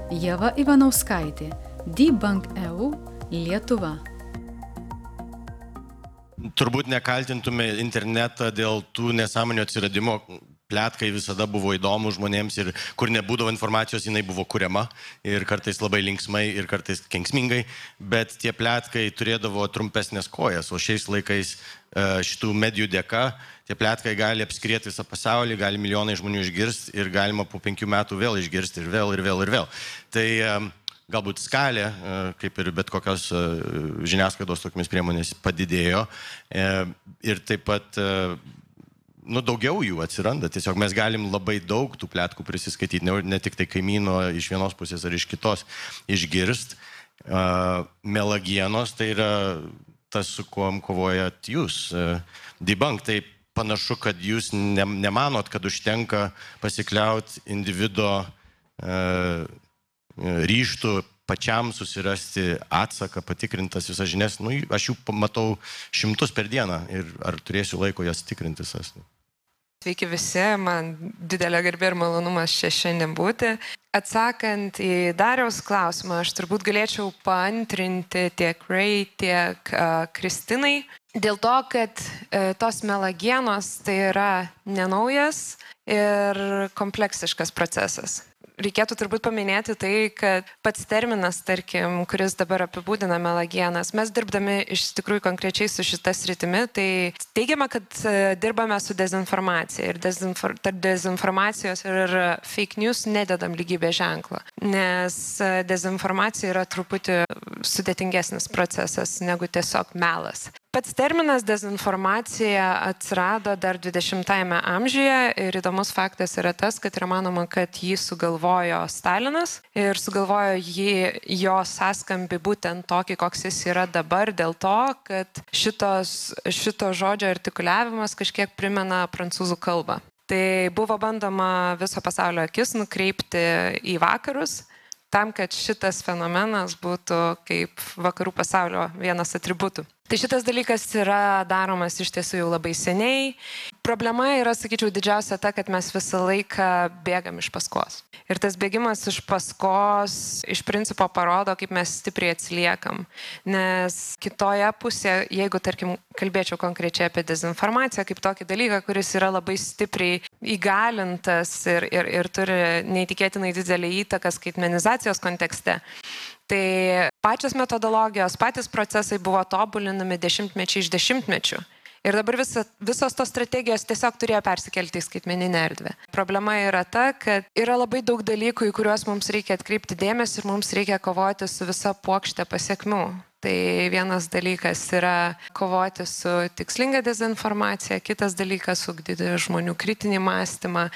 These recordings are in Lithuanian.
Ieva Ivanauskaitė, Debunk EU, Lietuva. Turbūt nekaltintume internetą dėl tų nesąmonių atsiradimo. Pletkai visada buvo įdomu žmonėms ir kur nebūdavo informacijos, jinai buvo kuriama ir kartais labai linksmai ir kartais kenksmingai, bet tie pletkai turėdavo trumpesnės kojas, o šiais laikais šitų medijų dėka tie pletkai gali apskrieti visą pasaulį, gali milijonai žmonių išgirsti ir galima po 5 metų vėl išgirsti ir vėl ir vėl ir vėl. Tai galbūt skalė, kaip ir bet kokios žiniasklaidos tokiamis priemonės padidėjo ir taip pat daugiau jų atsiranda. Tiesiog mes galim labai daug tų pletkų prisiskaityti, ne tik tai kaimyno iš vienos pusės ar iš kitos išgirst. Melagienos tai yra tas, su kuom kovojat jūs. Debunk, tai panašu, kad jūs nemanot, kad užtenka pasikliauti individo ryžtų pačiam susirasti atsaką, patikrintas visas žinias. Aš jų matau 100 per dieną ir ar turėsiu laiko jas tikrintis. Sveiki visi, man didelė garbė ir malonumas čia šiandien būti. Atsakant į Dariaus klausimą, aš turbūt galėčiau paantrinti tiek Ray, tiek Kristinai. Dėl to, kad tos melagienos tai yra nenaujas ir kompleksiškas procesas. Reikėtų turbūt paminėti tai, kad pats terminas, tarkim, kuris dabar apibūdina melagienas, mes dirbdami iš tikrųjų konkrečiai su šita sritimi, tai teigiama, kad dirbame su dezinformacija ir tarp dezinformacijos ir fake news nededam lygybės ženklą, nes dezinformacija yra truputį sudėtingesnis procesas negu tiesiog melas. Pats terminas dezinformacija atsirado dar 20-ame amžiuje ir įdomus faktas yra tas, kad yra manoma, kad jį sugalvojo Stalinas ir sugalvojo jo sąskambį būtent tokį, koks jis yra dabar, dėl to, kad šito žodžio artikuliavimas kažkiek primena prancūzų kalbą. Tai buvo bandoma viso pasaulio akis nukreipti į vakarus, tam, kad šitas fenomenas būtų kaip vakarų pasaulio vienas atributų. Tai šitas dalykas yra daromas iš tiesų jau labai seniai. Problema yra, sakyčiau, didžiausia ta, kad mes visą laiką bėgam iš paskos. Ir tas bėgimas iš paskos iš principo parodo, kaip mes stipriai atsiliekam. Nes kitoje pusėje, jeigu, tarkim, kalbėčiau konkrečiai apie dezinformaciją, kaip tokį dalyką, kuris yra labai stipriai įgalintas ir turi neįtikėtinai didelį įtaką skaitmenizacijos kontekste, tai pačios metodologijos, patys procesai buvo tobulinami dešimtmečiai iš dešimtmečių. Ir dabar visos tos strategijos tiesiog turėjo persikelti į skaitmeninę erdvę. Problema yra ta, kad yra labai daug dalykų, į kuriuos mums reikia atkreipti dėmesį ir mums reikia kovoti su visa puokšte pasiekmių. Tai vienas dalykas yra kovoti su tikslinga dezinformacija, kitas dalykas ugdyti žmonių kritinį mąstymą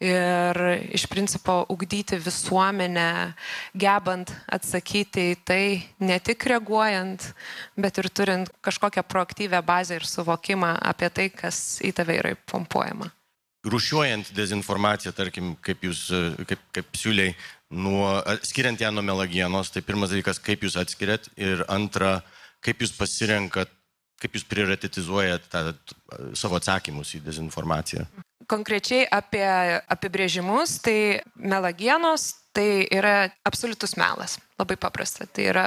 ir iš principo ugdyti visuomenę, gebant atsakyti į tai, ne tik reaguojant, bet ir turint kažkokią proaktyvę bazę ir suvokimą apie tai, kas į tave yra pompuojama. Rūšiuojant dezinformaciją, tarkim, kaip siūliai, skiriant ją nuo melagienos, tai pirmas dalykas, kaip jūs atskiriat ir antra, kaip jūs pasirenkat, kaip jūs prioritetizuojat savo atsakymus į dezinformaciją. Konkrečiai apie apibrėžimus, tai melagienos tai yra absoliutus melas, labai paprasta. Tai yra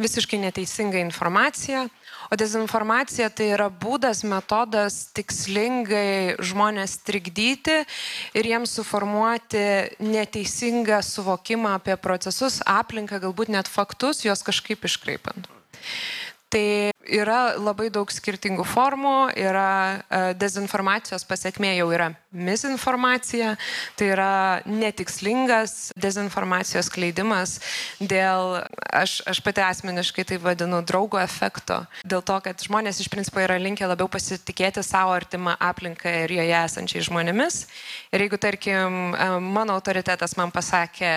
visiškai neteisinga informacija, o dezinformacija tai yra būdas, metodas tikslingai žmonės trikdyti ir jiems suformuoti neteisingą suvokimą apie procesus, aplinką, galbūt net faktus, juos kažkaip iškreipant. Tai yra labai daug skirtingų formų, yra dezinformacijos pasekmė jau yra misinformacija, tai yra netikslingas dezinformacijos skleidimas dėl, aš pati asmeniškai tai vadinu draugo efekto, dėl to, kad žmonės iš principo yra linkę labiau pasitikėti savo artimą aplinką ir joje esančiai žmonėmis. Ir jeigu, tarkim, mano autoritetas man pasakė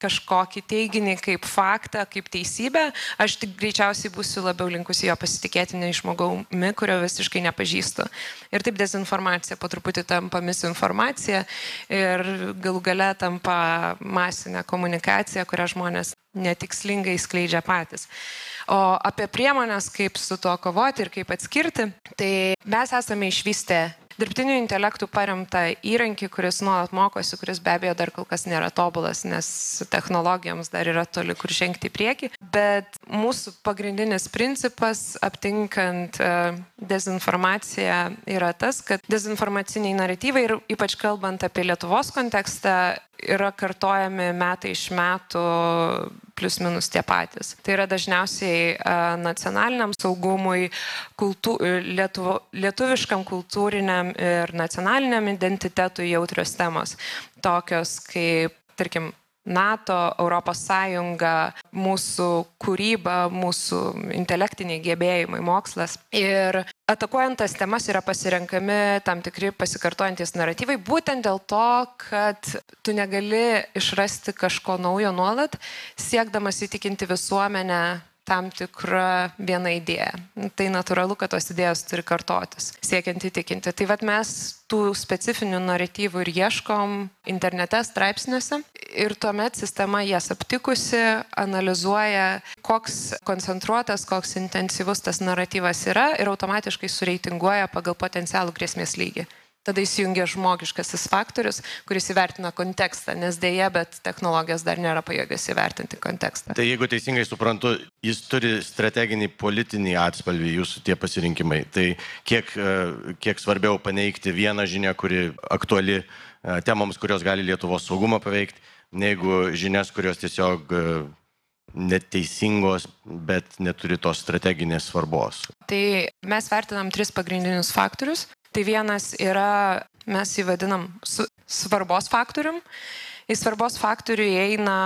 kažkokį teiginį kaip faktą, kaip teisybę, aš tik greičiausiai būsiu labiau linkusi jo pasitikėti nei žmogaumi, kurio visiškai nepažįstu. Ir taip dezinformacija po truputį tampa misinformacija ir galų gale tampa masinė komunikacija, kurią žmonės netikslingai skleidžia patys. O apie priemonės, kaip su tuo kovoti ir kaip atskirti, tai mes esame išvystę dirbtiniu intelektu paremtą įrankį, kuris nuolat mokosi, kuris be abejo dar kol kas nėra tobulas, nes technologijoms dar yra toli kur žengti į priekį. Bet mūsų pagrindinis principas, aptinkant dezinformaciją, yra tas, kad dezinformaciniai naratyvai ir ypač kalbant apie Lietuvos kontekstą, yra kartojami metai iš metų plius minus tie patys. Tai yra dažniausiai nacionaliniam saugumui, lietuviškam kultūriniam ir nacionaliniam identitetui jautrios temos, tokios kaip, tarkim, NATO, Europos Sąjunga, mūsų kūryba, mūsų intelektiniai gebėjimai, mokslas. Ir atakuojant tas temas yra pasirenkami tam tikri pasikartojantis naratyvai, būtent dėl to, kad tu negali išrasti kažko naujo nuolat, siekdamas įtikinti visuomenę tam tikrą vieną idėją. Tai natūralu, kad tos idėjos turi kartotis, siekiant įtikinti. Tai vat mes tų specifinių naratyvų ir ieškom internete, straipsniuose ir tuomet sistema jas aptikusi analizuoja, koks koncentruotas, koks intensyvus tas naratyvas yra ir automatiškai sureitinguoja pagal potencialų grėsmės lygį. Tada įsijungia žmogiškasis faktorius, kuris įvertina kontekstą, nes dėja, bet technologijos dar nėra pajėgios įvertinti kontekstą. Tai jeigu teisingai suprantu, jis turi strateginį politinį atspalvį, jūsų tie pasirinkimai. Tai kiek svarbiau paneigti vieną žinią, kuri aktuali temoms, kurios gali Lietuvos saugumą paveikti, negu žinias, kurios tiesiog neteisingos, bet neturi tos strateginės svarbos. Tai mes vertinam 3 pagrindinius faktorius. Tai vienas yra, mes jį vadinam svarbos faktorium. Į svarbos faktorių įeina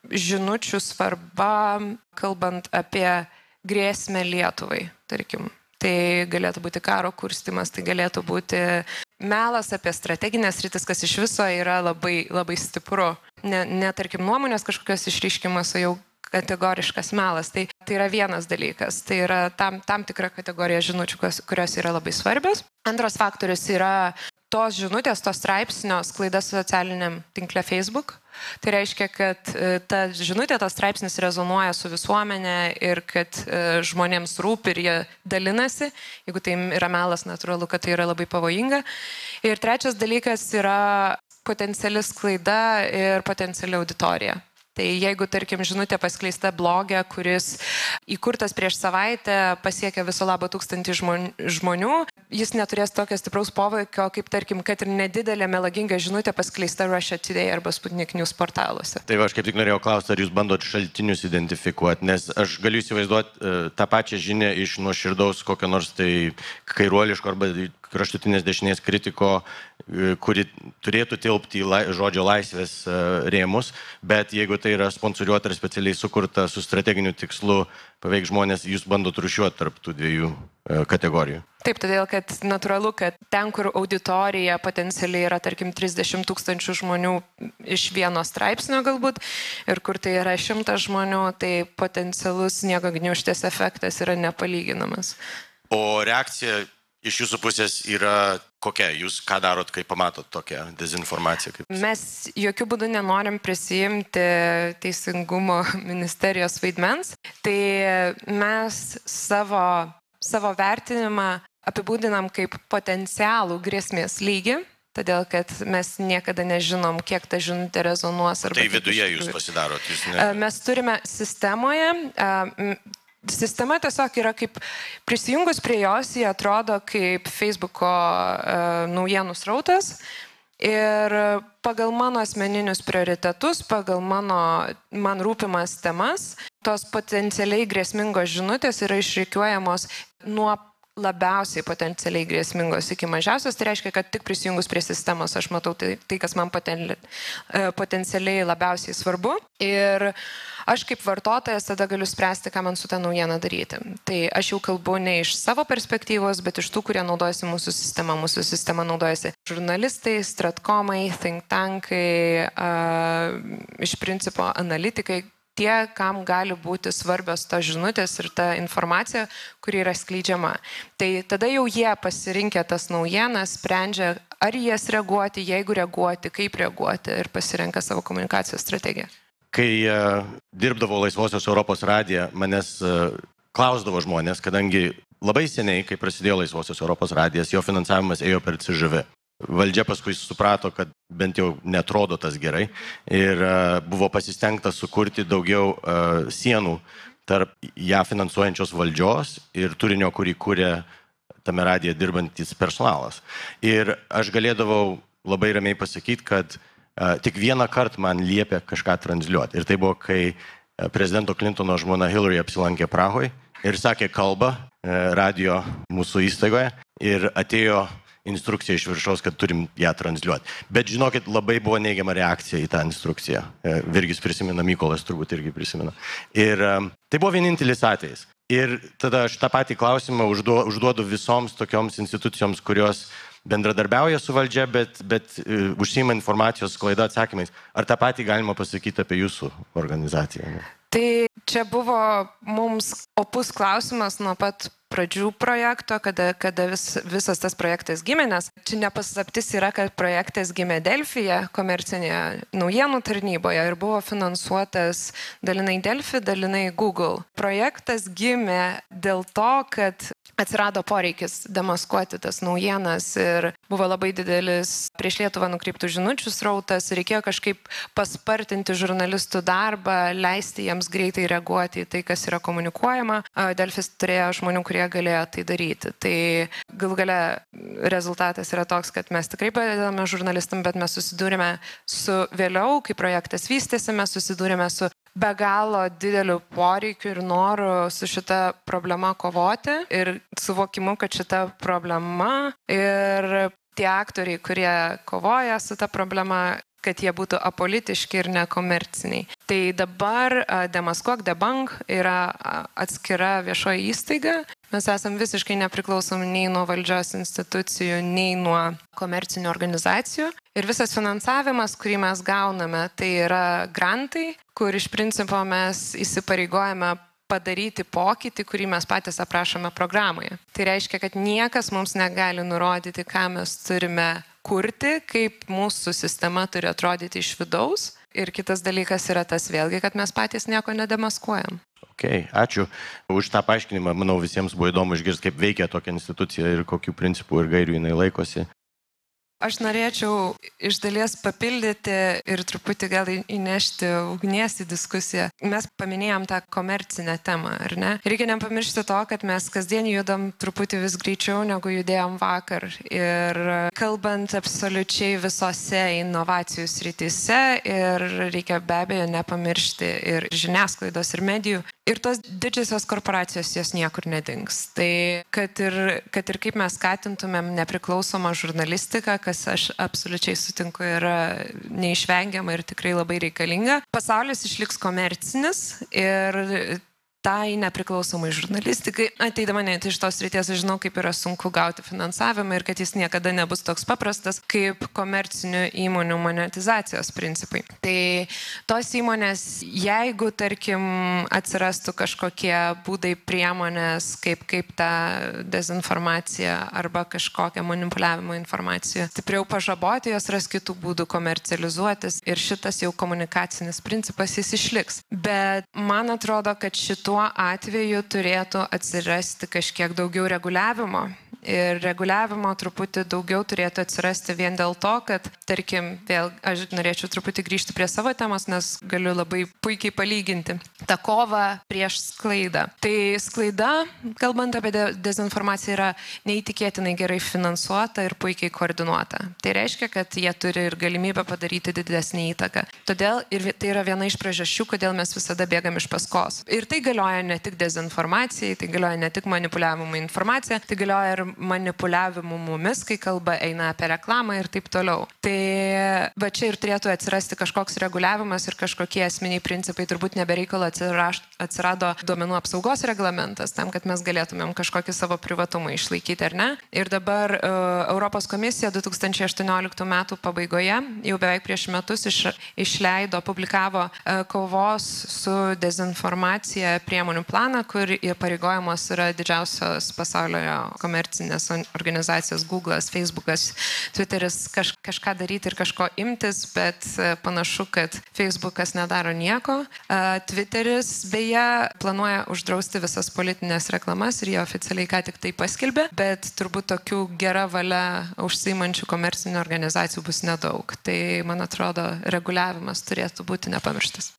žinučių svarba, kalbant apie grėsmę Lietuvai, tarkim. Tai galėtų būti karo kurstymas, tai galėtų būti melas apie strateginės rytis, kas iš viso yra labai, labai stipru. Ne tarkim nuomonės kažkokios išryškimas, o jau kategoriškas melas. Tai yra vienas dalykas. Tai yra tam tikra kategorija žinučių, kurios yra labai svarbios. Antras faktorius yra tos žinutės, tos straipsnio sklaida socialiniam tinkle Facebook. Tai reiškia, kad ta žinutė, tas straipsnis rezonuoja su visuomenė ir kad žmonėms rūpi ir jie dalinasi. Jeigu tai yra melas, natūralu, kad tai yra labai pavojinga. Ir trečias dalykas yra potenciali sklaida ir potenciali auditorija. Tai jeigu, tarkim, žinutė paskleista blogė, kuris įkurtas prieš savaitę pasiekia viso labo 1000 žmonių, jis neturės tokio stipraus poveikio, kaip, tarkim, kad ir nedidelė melaginga žinutė paskleista Russia Today arba Sputnik News portaluose. Tai aš kaip tik norėjau klausti, ar jūs bandot šaltinius identifikuoti, nes aš galiu įsivaizduoti tą pačią žinią iš nuoširdaus kokio nors tai kairuoliško arba kraštutinės dešinės kritiko, kuri turėtų tilpti į žodžio laisvės rėmus, bet jeigu tai yra sponsoriuota ir specialiai sukurta su strateginiu tikslu paveik žmonės, jūs bandot rūšiuoti tarp tų dviejų kategorijų. Taip, todėl, kad natūralu, kad ten, kur auditorija potencialiai yra, tarkim, 30 000 žmonių iš vieno straipsnio galbūt, ir kur tai yra 100 žmonių, tai potencialus sniego gniūžtės efektas yra nepalyginamas. O reakcija iš jūsų pusės yra kokia? Jūs ką darot, kai pamatot tokią dezinformaciją? Mes jokių būdų nenorim prisijimti Teisingumo ministerijos vaidmens. Tai mes savo vertinimą apibūdinam kaip potencialų grėsmės lygį, todėl kad mes niekada nežinom, kiek ta žinutė rezonuos. Tai viduje jūs pasidarot? Mes turime sistemoje. Sistema tiesiog yra kaip prisijungus prie jos, jie atrodo kaip Facebooko naujienų srautas ir pagal mano asmeninius prioritetus, pagal man rūpimas temas, tos potencialiai grėsmingos žinutės yra išrikiuojamos nuo labiausiai potencialiai grėsmingos iki mažiausios. Tai reiškia, kad tik prisijungus prie sistemos aš matau tai kas man potencialiai labiausiai svarbu. Ir aš kaip vartotojas tada galiu spręsti, ką man su tą naujieną daryti. Tai aš jau kalbu ne iš savo perspektyvos, bet iš tų, kurie naudojasi mūsų sistema. Mūsų sistema naudojasi žurnalistai, stratkomai, think tankai, iš principo analitikai, tie, kam gali būti svarbios tos žinutės ir ta informacija, kuri yra skleidžiama. Tai tada jau jie pasirinkę tas naujienas, sprendžia, ar jas reaguoti, jeigu reaguoti, kaip reaguoti ir pasirenka savo komunikacijos strategiją. Kai dirbdavau Laisvosios Europos radiją, manęs klausdavo žmonės, kadangi labai seniai, kai prasidėjo Laisvosios Europos radijas, jo finansavimas ėjo per CŽV. Valdžia paskui suprato, kad bent jau netrodo tas gerai ir buvo pasistengta sukurti daugiau sienų tarp ją finansuojančios valdžios ir turinio, kurį kūrė tame radije dirbantis personalas. Ir aš galėdavau labai ramiai pasakyti, kad tik vieną kartą man liepė kažką transliuoti. Ir tai buvo, kai prezidento Clintono žmona Hillary apsilankė Prahoje ir sakė kalbą radijo mūsų įstaigoje ir atėjo instrukcija iš viršaus, kad turim ją transliuoti. Bet žinokit, labai buvo neigiama reakcija į tą instrukciją. Virgis prisimena, Mykolas turbūt irgi prisimena. Ir tai buvo vienintelis atvejis. Ir tada aš tą patį klausimą užduodu visoms tokioms institucijoms, kurios bendradarbiauja su valdžia, bet užsiima informacijos sklaida atsakymais. Ar tą patį galima pasakyti apie jūsų organizaciją? Tai čia buvo mums opus klausimas nuo pat pradžių projekto, kada visas tas projektas gimė, nes čia nepaslaptis yra, kad projektas gimė Delfyje, komercinėje naujienų tarnyboje ir buvo finansuotas dalinai Delfy, dalinai Google. Projektas gimė dėl to, kad atsirado poreikis demaskuoti tas naujienas ir buvo labai didelis prieš Lietuvą nukreiptų žinučių srautas, reikėjo kažkaip paspartinti žurnalistų darbą, leisti jiems greitai reaguoti į tai, kas yra komunikuojama. Delfis turėjo žmonių, kurie galėjo tai daryti. Tai galų gale rezultatas yra toks, kad mes tikrai padedame žurnalistam, bet mes susidūrėme su vėliau, kai projektas vystėsi, mes susidūrėme su be galo dideliu poreikiu ir noru su šita problema kovoti ir suvokimu, kad šita problema ir tie aktoriai, kurie kovoja su ta problema, kad jie būtų apolitiški ir nekomerciniai. Tai dabar Demaskuok Debunk yra atskira viešoji įstaiga. Mes esam visiškai nepriklausomi nei nuo valdžios institucijų, nei nuo komercinių organizacijų. Ir visas finansavimas, kurį mes gauname, tai yra grantai, kur iš principo mes įsipareigojame padaryti pokytį, kurį mes patys aprašome programoje. Tai reiškia, kad niekas mums negali nurodyti, ką mes turime kurti, kaip mūsų sistema turi atrodyti iš vidaus. Ir kitas dalykas yra tas vėlgi, kad mes patys nieko nedemaskuojam. Okay, ačiū už tą paaiškinimą. Manau, visiems buvo įdomu išgirsti, kaip veikia tokia institucija ir kokių principų ir gairių jinai laikosi. Aš norėčiau iš dalies papildyti ir truputį gal įnešti ugnies į diskusiją. Mes paminėjom tą komercinę temą, ar ne? Reikia nepamiršti to, kad mes kasdien judam truputį vis greičiau, negu judėjom vakar. Ir kalbant absoliučiai visose inovacijų srityse, ir reikia be abejo nepamiršti ir žiniasklaidos, ir medijų. Ir tos didžiosios korporacijos jos niekur nedings. Tai kad ir kaip mes skatintumėm nepriklausomą žurnalistiką, kas aš absoliučiai sutinku yra neišvengiama ir tikrai labai reikalinga, pasaulis išliks komercinis ir tai nepriklausomai žurnalistikai. Ateidama net iš tos srities, aš žinau, kaip yra sunku gauti finansavimą ir kad jis niekada nebus toks paprastas kaip komercinių įmonių monetizacijos principai. Tai tos įmonės, jeigu, tarkim, atsirastų kažkokie būdai priemonės, kaip tą dezinformaciją arba kažkokią manipuliavimo informaciją stipriau pažaboti, jos ras kitų būdų komercializuotis ir šitas jau komunikacinis principas jis išliks. Bet man atrodo, kad tuo atveju turėtų atsirasti kažkiek daugiau reguliavimo. Ir reguliavimo truputį daugiau turėtų atsirasti vien dėl to, kad, tarkim, vėl aš norėčiau truputį grįžti prie savo temos, nes galiu labai puikiai palyginti tą kovą prieš sklaidą. Tai sklaida, kalbant apie dezinformaciją, yra neįtikėtinai gerai finansuota ir puikiai koordinuota. Tai reiškia, kad jie turi ir galimybę padaryti didesnį įtaką. Todėl ir tai yra viena iš priežasčių, kodėl mes visada bėgam iš paskos. Ir tai galioja ne tik dezinformacijai, tai galioja ne tik manipuliavimui informacija, tai galioja ir manipuliavimu mumis, kai kalba eina apie reklamą ir taip toliau. Tai va čia ir turėtų atsirasti kažkoks reguliavimas ir kažkokie esminiai principai. Turbūt nebereikalo atsirado duomenų apsaugos reglamentas, tam, kad mes galėtumėm kažkokį savo privatumą išlaikyti, ar ne? Ir dabar Europos komisija 2018 metų pabaigoje, jau beveik prieš metus publikavo kovos su dezinformacija priemonių planą, kur įpareigojamos yra didžiausios pasaulio komercinės organizacijos Google'as, Facebook'as, Twitter'is kažką daryti ir kažko imtis, bet panašu, kad Facebook'as nedaro nieko. Twitter'is beje planuoja uždrausti visas politinės reklamas ir jie oficialiai ką tik tai paskelbė, bet turbūt tokių gera valia užsiimančių komercinių organizacijų bus nedaug. Tai, man atrodo, reguliavimas turėtų būti nepamirštas.